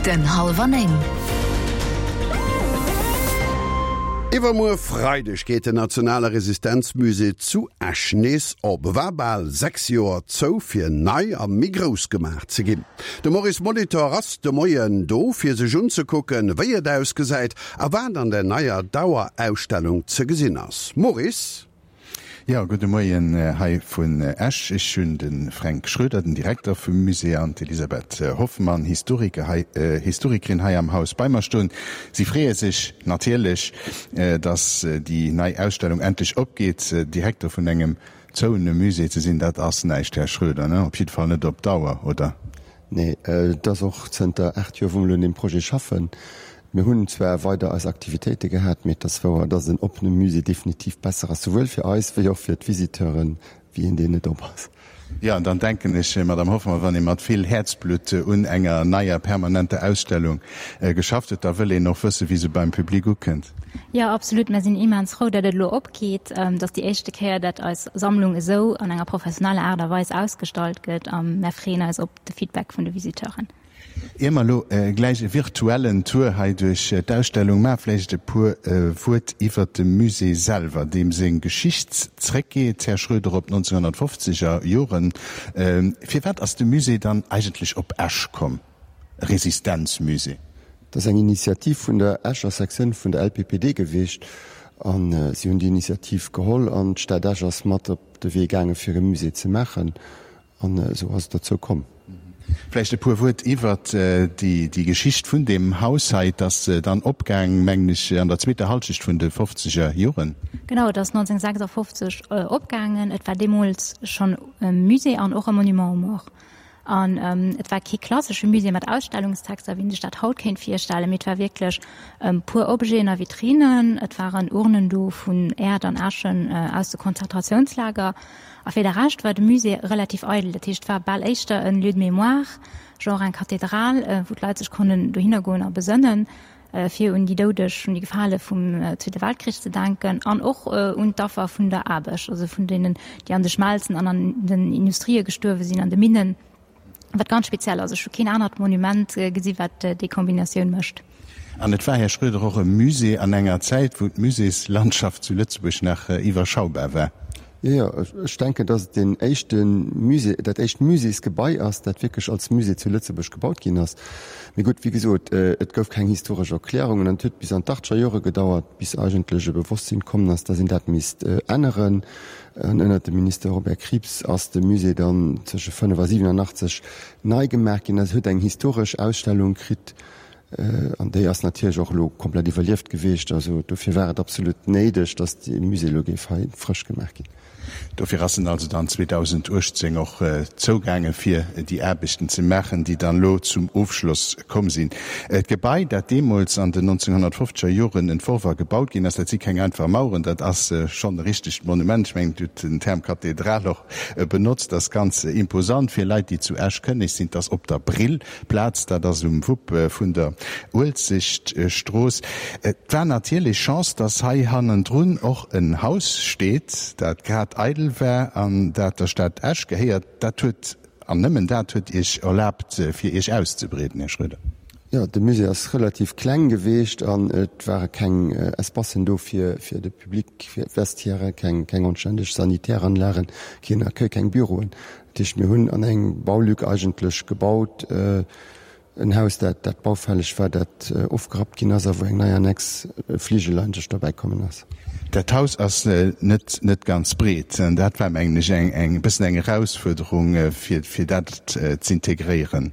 Minutten hallwer 9. Iwwermuer Freideg geet den nationale Resistenzmusée zu Esch nees op. E war bal 6 Joer zou, fir nei a méi grouss gemaach ze ginn. De Maurice Molitor ass de Moien do, fir sech unzekucken, wéi et ausgesäit a wat an der neier Dauerausstellung ze gesinn ass. Maurice? Jo, gudde Moien hei vun Esch. Ech hunn de Fränk Schroeder, den Direkter vum Musée, an d'Elisabeth Hoffmann, Historiker hei, Historikerin hei am Haus bei mer stoen. Si freeë sech natierlech, dass déi nei Ausstellung endlech opgeet. Direkter vun engem zouene Musée ze sinn, dat ass näischt, Här Schroeder, ne? Op jidde Fall net op Dauer, oder? Nee, et ass och zënter 8 Joer, wou mer elo un deem Projet schaffen. Mir hunn zwar weider eis Aktivitéite gehat, mee et ass wouer, dass en oppene Musée definitiv besser ass, souwuel fir eis wéi och fir d'Visiteuren, wéi een, deen net op ass. Jo, an dann denken ech, Madame Hoffmann, wann ee mat vill Häerzblutt un enger neier permanenter Ausstellung geschafft huet, da wëll een och wëssen, wéi se beim Public ukënnt. Jo, absolut. Mir sinn immens frou, datt et elo opgeet. Et ass déi éischte Kéier, datt eis Sammlung esou an enger professioneller Aart a Weis ausgestallt gëtt a mär freeën eis op de Feedback vun de Visiteuren. Ier mer elo gläich e virtuellen Tour hei duerch d'Ausstellung maachen, vläicht e puer Wuert iwwert de Musée selwer, deem seng Geschicht zréckgeet, Här Schroeder, op d'Nonzénhunnertfofzeger Joren. Firwat ass de Musée dann eigentlech op Esch komm, e Resistenzmusée? Dat ass eng Initiativ vun der Escher Sektioun vun der LPPD gewiescht a si hunn déi Initiativ geholl an d'Stad Esch ass mat op de Wee gaange fir e Musée ze maachen. An esou ass et dozou komm. Vläicht e puer Wuert iwwert déi Geschicht vun deem Haus hei. Et ass dann opgaang, mengen ech, an der zweeter Halschecht vun de fofzeger Joren. Genau, et ass 1956 opgaangen. Et war deemools schonn e Musée an och e Monument aux morts. An et war kee klassesche Musée mat Ausstellungstexter, wéi een sech dat haut kéint virstellen, mee et war wierklech puer Objeten a Vitrinen. Et waren Urnen do vun Äerd an Äschen aus de Konzentratiounslager. A fir de Rescht war de Musée relativ eidel. Dat heescht, et war bal éischter en Lieu de mémoire, genre eng Kathedral, wou d'Leit sech konnen dohinner goen a besënnen, fir un déi Doudeg, un déi Gefale vum Zweete Weltkrich ze denken an och un d'Affer vun der Aarbecht, also vun deenen, déi an de Schmelzen an an den Industrië gestuerwe sinn, an de Minnen. Wat ganz speziell ass, ech hu keen anert Monument gesi wat déi Kombinatioun mécht. An et war, Här Schroeder, och e Musée an enger Zäit, wou d'Muséeslandschaft zu Lëtzebuerg nach iwwerschaubar war. Jo, jo, ech denken, dass et deen éischte Musée, dat éischt Muséesgebai ass, dat wierklech als Musée zu Lëtzebuerg gebaut ginn ass. Mee gutt, wéi gesot, et gouf keng historesch Erklärungen an et huet bis an d'Achtger Jore gedauert, bis eigentlech e Bewosstsinn kommen ass, dass een dat misst änneren. An ënnert dem Minister Robert Krieps ass de Musée dann zwësche 5 a 87 nei gemaach ginn. Et huet eng historesch Ausstellung kritt an déi ass natierlech och elo komplett iwwerlieft gewiescht. Also dofir war et absolut néideg, datt dee Musée elo géif hei frësch gemaach ginn. Dofir ass en also dann 2018 och zougaange fir déi Aarbechten ze maachen, déi dann elo zum Ofschloss komm sinn. D'Gebai, dat deemools an den 1950er Joren entworf a gebaut ginn ass, dat si keng einfach Maueren, dat ass schonn e richtegt Monument. Ech mengen, Dir hutt den Term Kathedral och benotzt. Dat ass ganz imposant fir Leit, déi zu Esch kënneg sinn. Et ass op der Brillplaz, dat ass um Wupp vun der Uelzechtstrooss. Et war natierlech Chance, dass hei hannendrun och en Haus steet, dat grad eidel war an dat der Stad Esch gehéiert. Dat huet An nëmmen dat huet Iech erlaabt, fir Iech auszebreeden, Här Schroeder? Jo, de Musée ass relativ kleng geweecht an et ware keng Espacen do fir fir de Public, fir d'Vestiairen, keng keng anständeg Sanitäranlagen, keen Accueil, keng Büroen. Dat heescht, mir hunn an eng Baulück eigentlech gebaut, En Haus, dat dat baufälleg war, dat ofgerappt ginn ass a wou eng nei Annex, e Fligel eigentlech dobäi kommen ass. Dat Haus ass net net ganz breet. Dat war, mengen ech, eng eng bëssen eng Erausfuerderung, fir fir dat z'integréieren.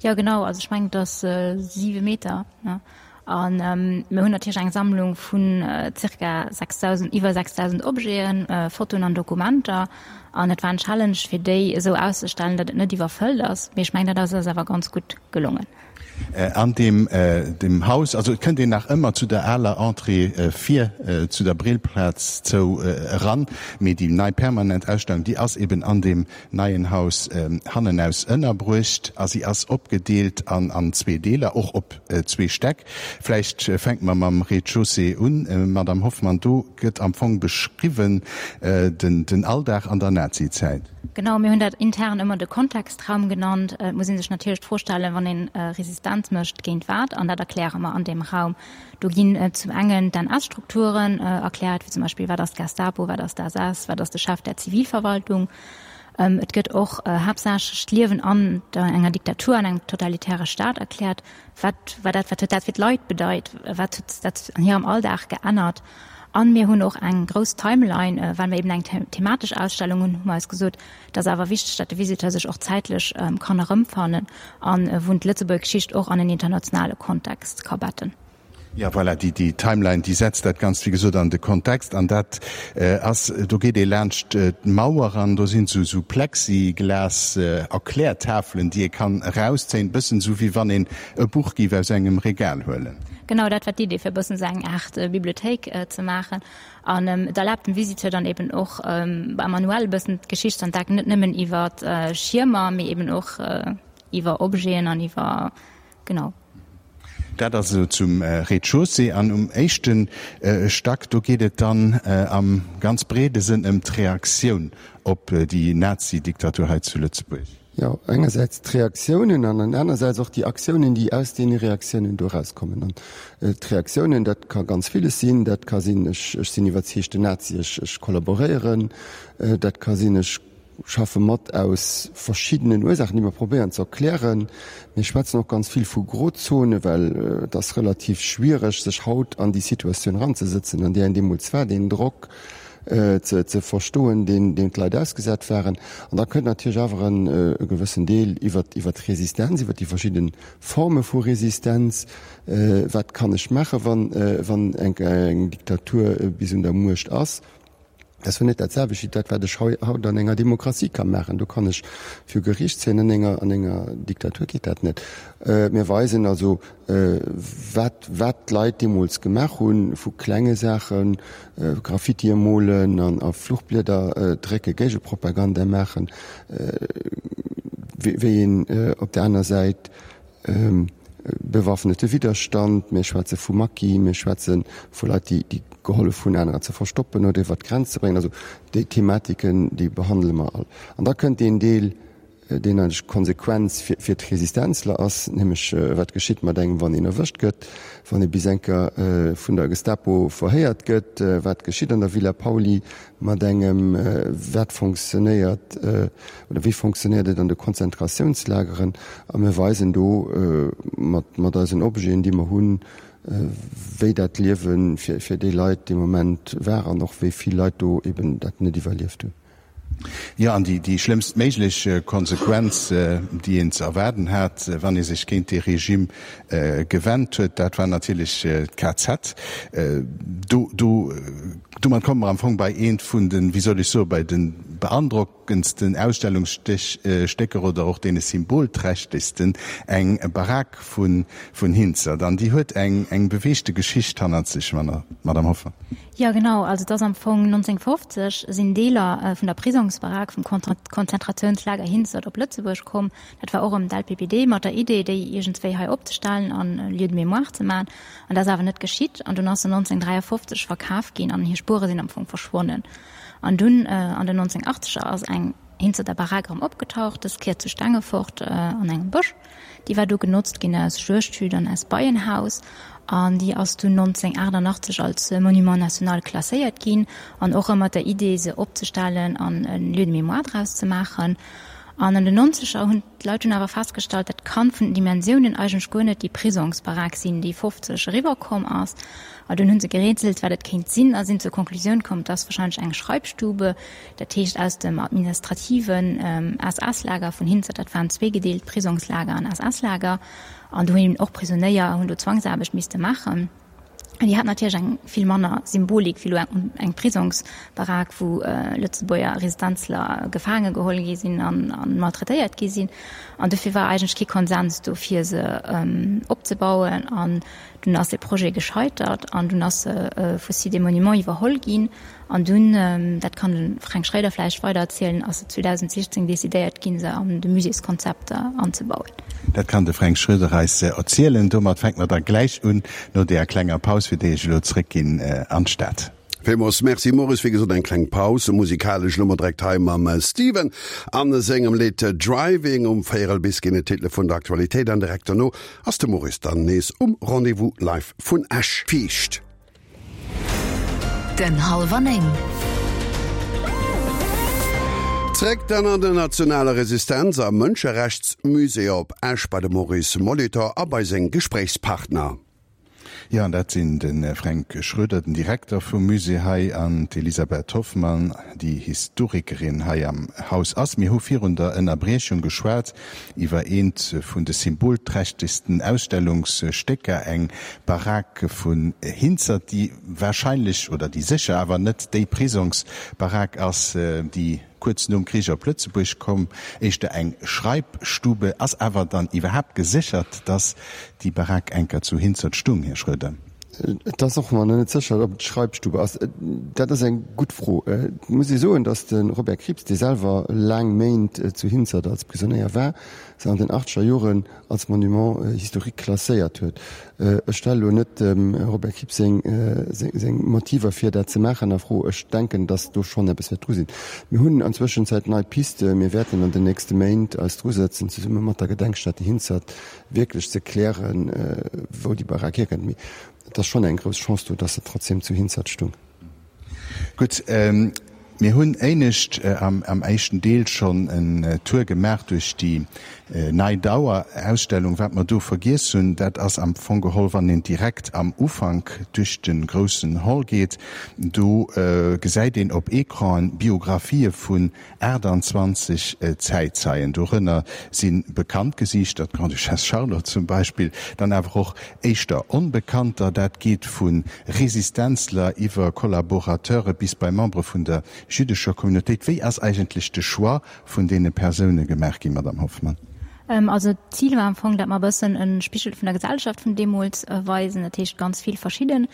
Jo, genau. Also ech mengen, et ass siwe Meter, ne? A mir hunn natierlech eng Sammlung vun zirka 6.000, iwwer 6.000 Objeten, Fotoen an Dokumenter. An et war en Challenge, fir déi esou auszestellen, datt et net iwwerfëllt ass. Mee ech mengen, dat ass eis awer ganz gutt gelongen. An deem dem Haus, also et kënnt een nach ëmmer zu der aler Entrée vir zu der Brillplaz zou eran, mee déi nei permanent Ausstellung, déi ass eben an deem neien Haus hannenaus ënnerbruecht a si ass opgedeelt an zwee Deeler, och op zwee Stäck. Vläicht fänke mer mam Rez-de-chaussée un, Madame Hoffmann. Do gëtt am Fong beschriwwen den Alldag an der. Nazizäit. Genau, mir hunn dat intern ëmmer de Kontextraum genannt. Et muss ee sech natierlech d'Fro stellen, wann ee Resistenz mécht, géint wat? An dat erkläre mer an deem Raum. Do ginn zum engen d'NS-Strukturen erkläert, wéi zum Beispill, wat ass d'Gestapo, wat ass d'SS, wat ass de Chef der Zivilverwaltung. Et gëtt och haaptsächlech d'Liewen an enger Diktatur, an engem totalitäre Staat erkläert. Wat war dat, wat huet dat fir d'Leit bedeit, wat huet dat an hirem Alldag geännert? An mir hunn och eng grouss Timeline, well mir eben eng thematesch Ausstellung hunn, hu mer eis gesot, et ass awer wichteg, datt de Visiteur sech och zäitlech kann erëmfannen an wou en d'Lëtzebuerger Geschicht och an en internationale Kontext ka betten. Jo, voilà, déi, déi Timeline, déi setzt dat Ganzt, wéi gesot, an de Kontext. An dat ass, do geet ee laanscht d'Mauer an do sinn esou, esou Plexiglas-Erklärtafelen, déi ee kann erauszéien, e bëssen esou, wéi wann een e Buch géif aus engem Regal huelen. Genau, dat war d'Idee, fir e bëssen esou eng Aart Bibliothéik ze maachen. An et erlaabt dem Visiteur dann eben och manuell e bëssen d'Geschicht ze entdecken, net nëmmen iwwer Schiermer, mee eben och iwwer Objeten an iwwer, genau. Dat ass esou zum Rez-de-chaussée. An um éischte Stack, do geet et dann am ganz breede Sënn ëm d'Reaktioun op déi Nazi-Diktatur hei zu Lëtzebuerg. Jo, engersäits d'Reaktiounen an an anersäits och déi Aktiounen, déi aus deene Reaktiounen do erauskommen. An d'Reaktiounen, dat ka ganz villes sinn. Dat ka sinn, ech sinn iwwerzeegten Nazi, ech kollaboréieren. Dat ka sinn, ech schaffe mat aus verschiddenen Ursaachen, déi mer probéieren ze erklären. Mir schwätzen och ganz vill vu Grozone, well et ass relativ schwiereg, sech haut an déi Situatioun eranzesëtzen, an där een deemools war, deen Drock ze verstoen, deen deem d'Leit ausgesat waren. An da kënnt natierlech awer e gewëssen Deel iwwer iwwer d'Resistenz, iwwer déi verschidde Forme vu Resistenz. Wat kann ech maachen, wann wann eng Diktatur bis un der Muecht ass? Dat ass net dat selwecht wéi dat, wat ech haut an enger Demokratie ka maachen. Do kann ech viru Geriicht zéien, an enger, an enger Diktatur geet dat net. Mir weisen also, wat, wat d'Leit deemools gemaach hunn, vu klenge Saachen, Graffitie molen an a Fluchblieder drécke, Géigepropaganda maachen, wéi een op der aner Säit Bewaffnete Widderstand, mir schwätze vu Maquis, mir schwätze vu Leit, déi gehollef hunn, anerer ze verstoppen oder iwwer d'Grenz ze bréngen. Also déi Thematiken, déi behandele mer all. An da kënnt deen Deel, deen eigentlech d'Konsequenz fir d'Resistenzler ass, nämlech wat geschitt mat engem, wann een erwëscht gëtt, wann ee bis eng Kéier vun der Gestapo verhéiert gëtt, wat geschitt an der Villa Pauly mat engem, wat fonctionnéiert oder wéi fonctionnéiert et an de Konzentratiounslageren. A mir weisen do mat mat eisen Objeten, déi mer hunn, wéi dat Liewe fir fir déi Leit dee Moment war an och wéi vill Leit do eben dat net iwwerlieft hunn. Jo, an déi déi schlëmmst méiglech Konsequenz, déi een ze erwaarden hat, wann ee sech géint dee Regime gewennt huet, dat war natierlech d'KZ. Do do Domat komme mer am Fong bei eent vun den, wéi soll ech soen, bei de beandrockendsten Ausstellungsstécker oder och deene symbolträchtegsten, eng Barack vun Hinzert. An déi huet eng eng beweegte Geschicht hannert sech, Madame Hoffmann. Jo, genau. Also et ass am Fong 1950 sinn Deeler vun der Prisongsbarack vum Konzentrationslager Hinzert op Lëtzebuerg komm. Dat war och erëm d'LPPD mat der Idee, déi iergendswéi hei opzestellen an e Lieu de mémoire ze maachen. An dat ass awer net geschitt. An dunn ass se 1953 verkaf ginn an hir Spuere sinn am Fong verschwonnen. An dunn an den 1980er ass eng Hinzerter Barack erëm opgetaucht, dës Kéier zu Stengefort an engem Bësch. Déi war du genotzt ginn als Juegdhütt an als Beienhaus. An déi ass dunn 1988 als Monument national klasséiert ginn an och ëmmer mat der Idee, se opzestellen an e Lieu de mémoire draus ze maachen. An an den Nonzeger hunn d'Leit dunn awer festgestallt, dat kann vun den Dimensiounen eigentlech guer net déi Prisongsbarack sinn, déi 50 eriwwer komm ass. A dunn hu se gerätselt, wat et kéint sinn, a sinn zur Konklusioun komm, et ass wahrscheinlech eng Schreibstube, dat heescht aus dem administrativen SS-Lager vun Hinzert, dat waren zweegedeelt, Prisongslager an SS-Lager, an do hunn eben och Prisonéier hunn do Zwangsaarbecht misste maachen. An déi hat natierlech eng vill manner Symbolik wéi elo eng Prisongsbarack, wou Lëtzebuerger Resistenzler gefaange geholl gi sinn a maltraitéiert gi sinn. An dofir war eigentlech kee Konsens do, fir se opzebauen. An dunn ass dee Projet gescheitert an dunn ass se vu Sites et Monuments iwwerholl ginn. An dunn, dat kann de Fränk Schroeder vläicht weider erzielen, ass et 2016 decidéiert ginn, se an de Muséeskonzept anzebauen. Dat kann de Fränk Schroeder eis erzielen. Domat fänke mer da gläich un, no deeër klenger Paus, fir déi ech elo zréckginn an d'Stad. Villmools Merci Maurice, wéi gesot eng kleng Paus musikalesch elo mol direkt hei mam Steven an sengem Lidd Driving. Um véierel bis ginn et d'Titele vun der Aktualitéit an direkt dono ass de Maurice dann nees um Rendez-vous live vun Esch. Fiicht. Den Hallwer 9. Zréck dann an den nationale Resistenz a Mënscherechtsmusée op Esch bei de Maurice Molitor a bei seng Gespréichspartner. Jo, an dat sinn de Fränk Schroeder, den Direkter vum Musée hei, an d'Elisabeth Hoffmann, déi Historikerin hei am Haus ass. Mir hu virun der Ënnerbriechung geschwat iwwer eent vun de symbolträchtegsten Ausstellungsstécker, eng Barack vun Hinzert, déi warscheinlech, oder déi sécher awer net déi Prisongsbarack ass, déi kuerz nom Krich op Lëtzebuerg komm, éischter eng Schreibstube, ass awer dann iwwerhaapt geséchert, dass déi Barack enker zu Hinzert stung, Här Schroeder? Et ass och nach net sécher, ob et d'Schreibstube ass. Dat ass eng gutt Fro. Et muss ee soen, dass de Robert Krieps, dee selwer laang Méint zu Hinzert als Prisonéier war, se an den achtzeger Joren als Monument historique klasséiert huet. Ech stelle lo net dem Robert Krieps seng seng Motiver fir dat ze maachen a Fro. Ech denken, datt do schonn eppes wäert dru sinn. Mir hunn an Zwëschenzäit nei Piste. Mir wäerten an den nächste Méint eis drusëtzen, zesumme mat der Gedenkstätte Hinzert wierklech ze klären, wou déi Barack hierkënnt. Mee et ass schonn eng grouss Chance do, datt se trotzdem zu Hinzert stung. Gutt, mir hunn éinescht am éischten Deel schonn en Tour gemaach duerch déi nei Dauerausstellung. Wat mer do vergiess hunn, dat ass am Fong geholl, wann een direkt am Ufank duerch de groussen Hall geet, do gesäit een op Ecranen Biographië vun 28 Zäitzeien, dorënner si bekannt Gesiichter, d'Grande-Duchesse Charlotte zum Beispill, dann awer och éischter Onbekannter. Dat geet vu Resistenzler iwwer Kollaborateure bis bei Membere vun der jüddescher Communautéit. Wéi ass eigentlech de Choix vun deene Persoune gemaach ginn, Madamm Hoffmann? Also d'Zil war am Fong, dat mer e bëssen e Spigel vun der Gesellschaft vun deemools weisen, dat heescht ganz vill verschidden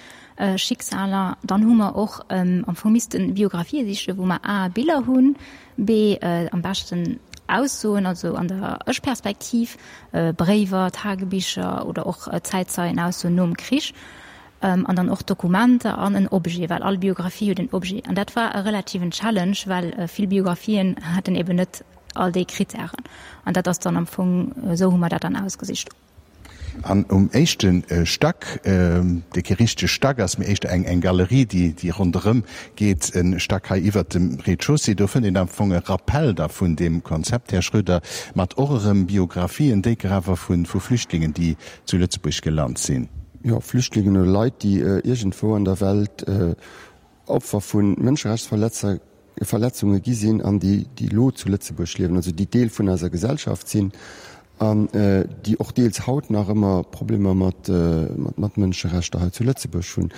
Schicksaler. Dann hu mer och am Fong missten Biografië sichen, wou mer a Biller hunn, b am beschten Aussoen, also an der Ech-Perspektiv, Bréiwer, Tagebicher oder och Zäitzeienaussoen nom Krich, an dann och Dokumenter an en Objet, well all Biografie huet en Objet. An dat war e relativen Challenge, well vill Biografien haten eben net all déi Krittären. An dat ass dann am Fong, esou hu mer dat dann ausgesicht. An um éischte Stack, dee kee richtege Stack ass, mee éischter eng eng Galerie, déi déi ronderëm geet, e Stack hei iwwert dem Rez-de-chaussée, do fënnt een am Fong e Rappell da vun deem Konzept, Här Schroeder, mat och erëm Biographien, déiker awer vu vu Flüchtlingen, déi zu Lëtzebuerg gelant sinn. Jo, Flüchtlingen oder Leit, déi iergendwou an der Welt Opfer vu Mënscherechtsverletzunge gi sinn an déi, déi elo zu Lëtzebuerg liewen, also déi Deel vun eiser Gesellschaft sinn an déi och deels haut nach ëmmer Problemer mat, mat Mënscherechter hei zu Lëtzebuerg hunn.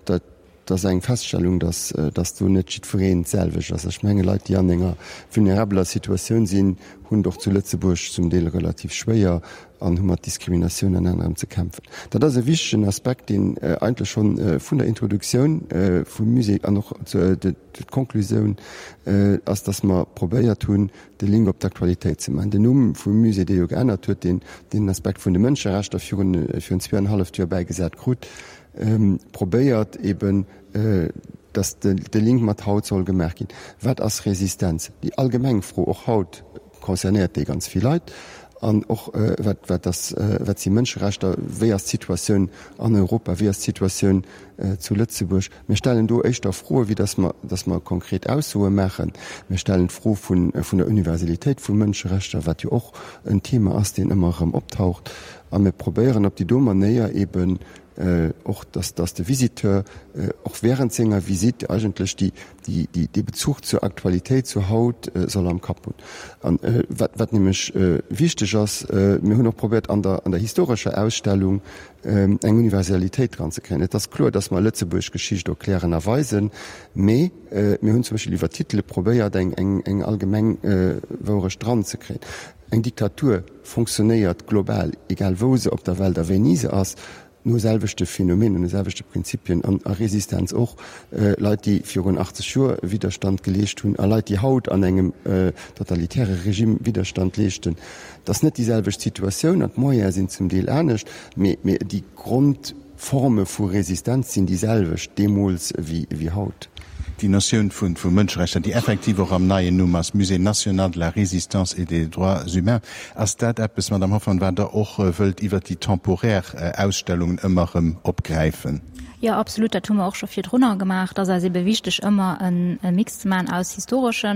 Dat ass eng Feststellung, dass, dass do net jiddwereen d'selwecht ass. Ech menge Leit, déi an enger vulnerabeler Situatioun sinn, hunn et och zu Lëtzebuerg zum Deel relativ schwéier an hu mat Diskriminatioun an anerem ze kämpfen. Dat ass e wichtegen Aspekt, deen eigentlech schonn vun der Introduktioun vum Musée an och d'Konklusioun ass, dass mer probéiert hunn, de Link op d'Aktualitéit ze maachen. Den Numm vum Musée, dee jo geännert huet, deen den Aspekt vun de Mënscherechter virun virun zweeanenhalleft Joer bäigesat krut, probéiert eben, dass de Link mat haut soll gemaach ginn. Wat ass Resistenz? Déi allgemeng Fro och haut, concernéiert déi ganz vill Leit an och wat wat ass wat si Mënscherechter, wéi ass d'Situatioun an Europa, wéi ass d'Situatioun zu Lëtzebuerg. Mir stellen do éischter Froe wéi datt mer datt mer konkret Aussoe maachen. Mir stellen d'Fro vun vun der Universalitéit vu Mënscherechter, wat jo och en Thema ass, deen ëmmer erëm optaucht a mir probéieren op déi do Manéier eeben och dass dass de Visiteur och während senger Visite eigentlech déi déi déi dee Bezuch zur Aktualitéit, zu haut soll am Kapp hunn. An wat wat nämlech wichteg ass, mir hunn och probéiert an der an der historescher Ausstellung eng Universalitéit dran ze kréien. Et ass kloer, dass mer Lëtzebuerg Geschicht erklären a weisen, mee mir hunn zum Beispill iwwer Titele probéiert eng eng eng allgemeng Wourecht dran ze kréien. Eng Diktatur fonctionnéiert global, egal wou se op der Welt a wéini se ass, no selwechte Phänomenen, no selwechte Prinzipien an a Resistenz och. Leit, déi virun 80 Joer Widderstand geleescht hunn a Leit, déi haut an engem totalitäre Regime Widderstand leeschten, dat ass net déi selwecht Situatioun an d'Moyene sinn zum Deel anescht, mee déi Grond. Forme vu Resistenz sinn déi selwecht deemools wéi haut. Déi Notioun vu Mënscherechter, déi effektiv och am neien Numm ass, Musée national de la Résistance et des droits humains, ass dat eppes, Madame Hoffmann, wat Der och wëllt iwwert déi temporär Ausstellungen ëmmer erëm opgräifen? Jo, absolut. Dat hu mer och scho virdrunner gemaach. Et ass eis ebe wichteg, ëmmer e Mix ze maachen aus historesche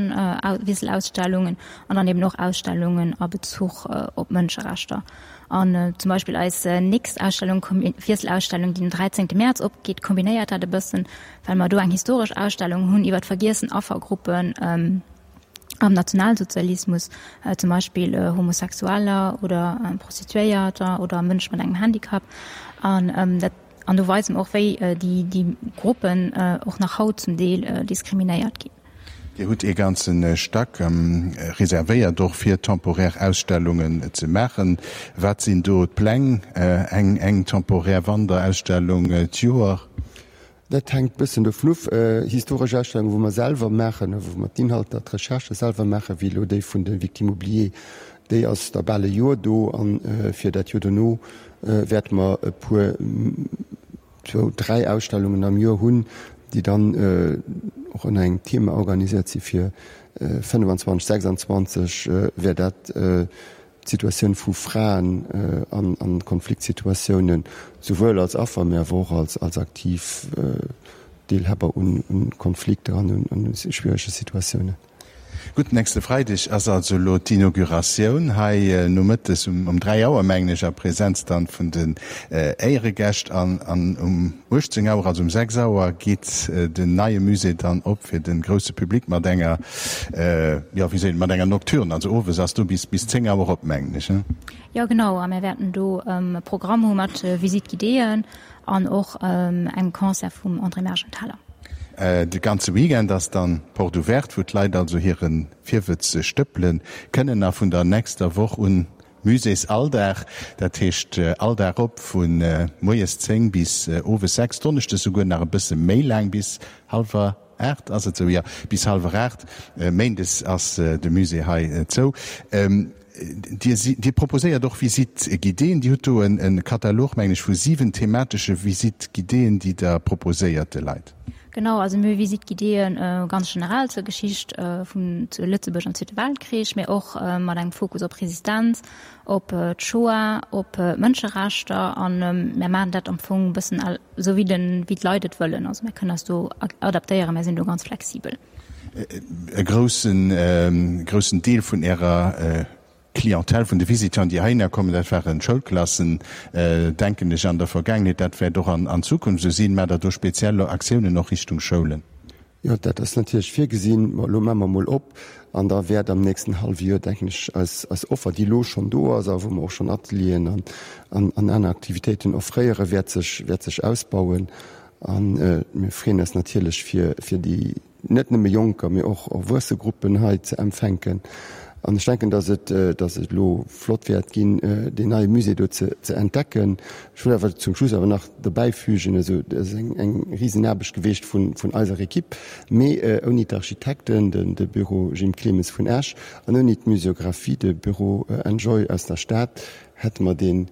Wiesselausstellungen an dann eben och Ausstellungen a Bezuch op Mënscherechter. An zum Beispill eis nächst Ausstellung, Wiesselausstellung, déi den 13 Mäerz opgeet, kombinéiert dat e bëssen, well mer do eng historesch Ausstellung hunn iwwer d'vergiessen Affergruppen am Nationalsozialismus, zum Beispill Homosexueller oder Prostituéierter oder Mënsche mat engem Handicap. An dat, an do weise mer och, wéi déi Gruppen och nach haut zum Deel diskriminéiert ginn. Dir hutt ee ganze Stack reservéiert och fir temporär Ausstellungen ze maachen. Wat sinn do d'Pläng? Eng eng temporär Wanderausstellung d'Joer? Dat hänkt bëssen dovun of. Historesch Ausstellungen, wou mer selwer maachen, wou mer d'Inhalter, d'Recherchë selwer maachen, wéi elo déi vun de Victimes oubliées, déi ass da bal e Joer do. A fir dat Joer dono wäerte mer e puer, zwou, dräi Ausstellungen am Joer hunn, déi dann och ënner engem Thema organiséiert si fir 25, 26 wär dat d'Situatioun vu Fraen an Konfliktsituatiounen, souwuel als Affer, mä awer och als aktiv Deelhaber un Konflikter an un schwierege Situatiounen. Gutt, nächste Freideg ass also elo d'Inauguratioun hei nomëttes um 3 Auer, mengen ech, a Präsenz dann vun den Éieregäscht. An um 18 Auer, also um 6 Auer, geet den neie Musée dann op fir de grousse Public mat enger, jo, wéi seet een, mat enger Nocturne. Also owes ass do bis 10 Auer op, mengen ech, ne? Jo, genau. A mir wäerten do e Programm hu mat Visite-guidéeën An och engem Concert vum André Mergenthaler. De ganze Weekend ass dann Porte ouverte, wou d'Leit also hire Virwëtz stëppele kënnen. A vun der nächster Woch un Muséesalldag, dat heescht all Dag op vu moies 10 bis owes 6, donneschdes souguer nach e bësse méi laang bis hallwer 8 ass et esou? Jo, bis hallwer 8. Méindes ass de Musée hei zou. Dir, Dir proposéiert och Visites guidéeën. Dir hutt do e Katalog, mengen ech, vu 7 thematesche Visites guidéeën, déi Der proposéiert de Leit. Genau, also mir hu Visites guidéeën ganz generell zur Geschicht vun zu Lëtzebuerg am Zweete Weltkrich, mee och mat engem Fokus op Resistenz, op d'Shoah, op d'Mënscherechter. A mir maachen dat am Fong e bëssen esou wéi den, wéi d'Leit et wëllen. Also mir kënnen eis do adaptéieren, mir sinn do ganz flexibel. E groussen, groussen Deel vun Ärer Clientèle, vun de Visiteuren, déi heihinner kommen, dat waren Schoulklassen, denken ech, an der Vergaangenheet. Dat wäert och an Zukunft esou sinn. Maacht Der do speziell Aktiounen och Richtung Schoulen? Jo, dat ass natierlech virgesinn. Mä elo maache mer emol op an da wäert am nächsten hallwe Joer, denken ech, eis, eis Offer, déi elo schonn do ass a wou mer och schonn Atelieren an, an, an aner Aktivitéiten offréieren, wäert sech, wäert sech ausbauen. A mir freeën eis natierlech, fir, fir déi net nëmme Jonker, mee och erwuesse Gruppen hei ze empfänken. An ech denken, dass et, dass et elo flott wäert ginn, deen neie Musée do ze, ze entdecken. Ech wëll awer zum Schluss awer nach dobäifügen, also dat ass eng, eng Risenaarbecht geweecht vun, vun eiser Equipe, mee ouni d'Architekten, den, de Büro Jim Clemes vun Esch, an ouni d'Muséographie, de Büro Enjoy aus der Stad, hätte mer dee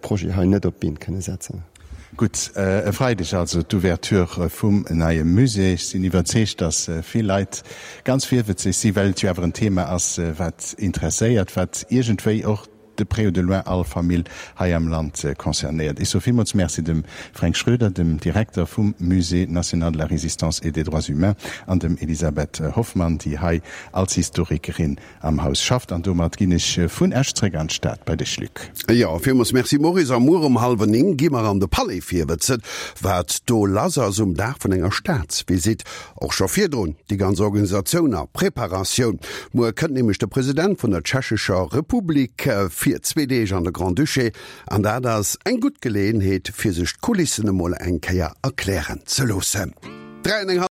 Projet hei net op d'Been kënne setzen. Gutt, e Freideg also d'Ouverture vum neie Musée. Ech sinn iwwerzeegt, datt vill Leit ganz virwëtzeg sinn, well et jo awer en Thema ass, wat interesséiert, wat iergendwéi och de près ou de loin all Famill hei am Land concernéiert. Ech soe villmools Merci dem Fränk Schroeder, dem Direkter vum Musée national de la Résistance et des droits humains, an dem Elisabeth Hoffmann, déi hei als Historikerin am Haus schafft. An domat ginn ech vun Esch zréck an d'Stad bei dech, Luc. Jo, villmools Merci Maurice. A muer um hallwer 9 gi mer an de Palais virwëtzen, wat do lass ass um Dag vun enger Staatsvisitt. Och scho virdrun déi ganz Organisatioun a Preparatioun. Muer kënnt nämlech de President vun der Tschechescher Republik fir zwee Deeg an de Grand-Duché. An dat ass eng gutt Geleeënheet, fir sech d'Kulissen emol eng Kéier erklären ze loossen. 3 an eng.